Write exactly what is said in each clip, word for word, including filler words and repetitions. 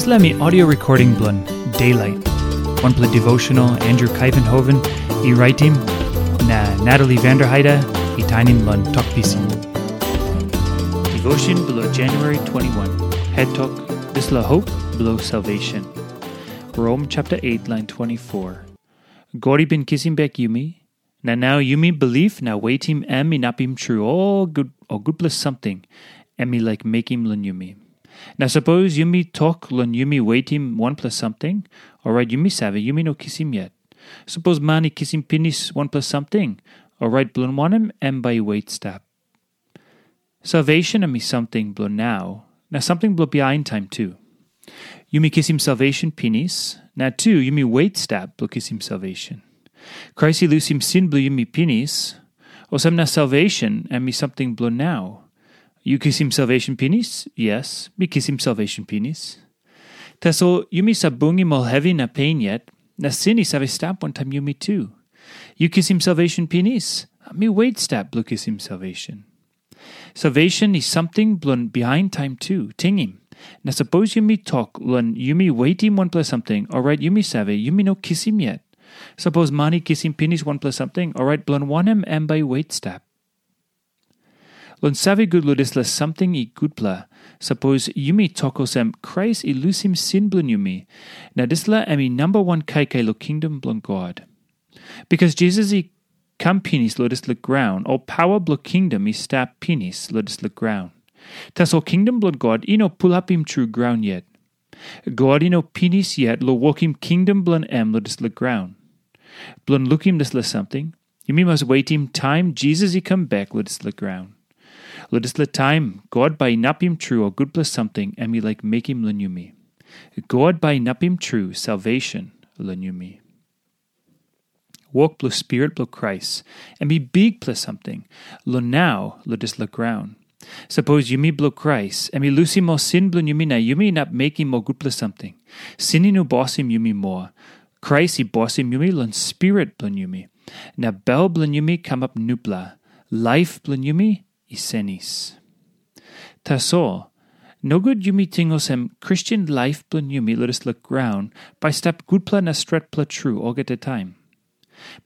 Dispela mi audio recording bilong Daylight, wanpela devotional Andrew Kaivenhoven i raitim, na Natalie Vanderheide i tainim long Tok Pisin. Devotion bilong January twenty-one, head tok, dispela hope bilong salvation. Rom chapter eight, line twenty-four. God i bin kisim bek yumi, na nau yumi bilip na wetim em inapim tru ol gut, ol gutpela samting em i laik mekim long yumi. Na sapos yumi tok long yumi wetim wanpela samting, orait yumi save, yumi no kisim yet. Sapos man i kisim pinis wanpela samting, orait bilong wanem em bai i wet stap? Salvation em i samting bilong nau, na samting bilong bihain taim tu. Yumi kisim salvation pinis, na tu yumi wet stap bilong kisim salvation. Krais i lusim sin bilong yumi pinis, olsem na salvation em i samting bilong nau. Yu kisim salvation pinis? Yes, mi kisim salvation pinis. Tasol yumi save bungim ol hevi na pen yet, na sin i save stap wantaim yumi tu. Yu kisim salvation pinis? Mi wet stap bilong kisim salvation. Salvation i samting bilong bihain taim tu, tingim. Na sapos yumi tok long yumi wetim wanpela samting, orait yumi save, yumi no kisim yet. Sapos man i kisim pinis wanpela samting, orait bilong wanem em bai i wet stap? Long save gut long dispela samting i gutpela, sapos yumi tok olsem Krais i lusim sin bilong yumi, na dispela em i namba wan kaikai long kingdom bilong God. Bikas Jisas i kam pinis long dispela graun, ol paua bilong kingdom i stap pinis long dispela graun. Tasol kingdom bilong God i no pulapim tru graun yet. God i no pinis yet long wokim kingdom bilong em long dispela graun. Bilong lukim dispela samting, yumi mas wetim taim Jisas i kam bek long dispela graun. Long dispela taim, God bai inapim tru ol gutpela samting em i laik mekim long yumi. God bai inapim tru salvation long yumi. Wok bilong Spirit bilong Krais em i bikpela samting long nau long dispela graun. Sapos yumi bilong Krais, em i lusim ol sin bilong yumi na yumi inap mekim ol gutpela samting. Sin i no bosim yumi moa. Krais i bosim yumi long spirit bilong yumi, na bel bilong yumi kamap nupela, laip bilong yumi i senis. Tasol, nogut yumi ting olsem Kristen laip bilong yumi long dispela graun bai stap gutpela na stretpela tru olgeta taim.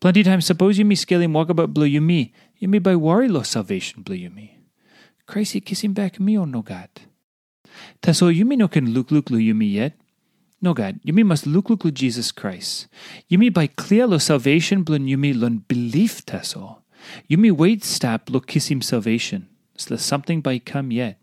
Planti taim sapos yumi skelim wokabaut bilong yumi, yumi bai wari long salvation bilong yumi. Krais i kisim bek mi o nogat? Tasol yumi no ken lukluk long yumi yet. Nogat, yumi mas lukluk long Jisas Krais. Yumi bai klia long salvation bilong yumi long bilip tasol. Yumi wet stap long kisim salvation. Dispela samting bai i kam yet.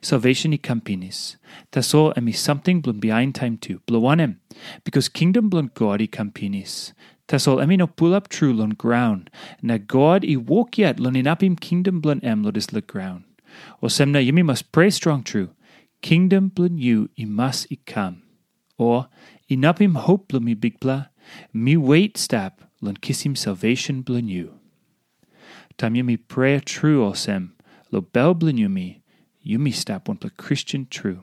Salvation i kam pinis. Tasol em i samting bilong bihain taim tu. Bilong wanem? Bikas kingdom bilong God i kam pinis. Tasol em i no pulap tru long graun, na God i wok yet long inapim kingdom bilong em long dispela graun. Olsem na yumi mas prea strong tru, kingdom bilong yu i mas i kam. O, inapim hop bilong mi Bikpela, mi wet stap long kisim salvation bilong yu. Taim yumi prea tru olsem, long bel bilong yumi, yumi stap wanpela Kristen tru.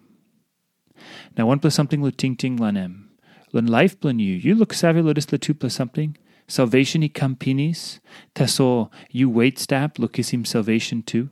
Na wanpela samting long tingting long em. Long laip bilong yu, yu luksave long dispela tupela samting, salvation i kam pinis, tasol yu wet stap long kisim salvation tu.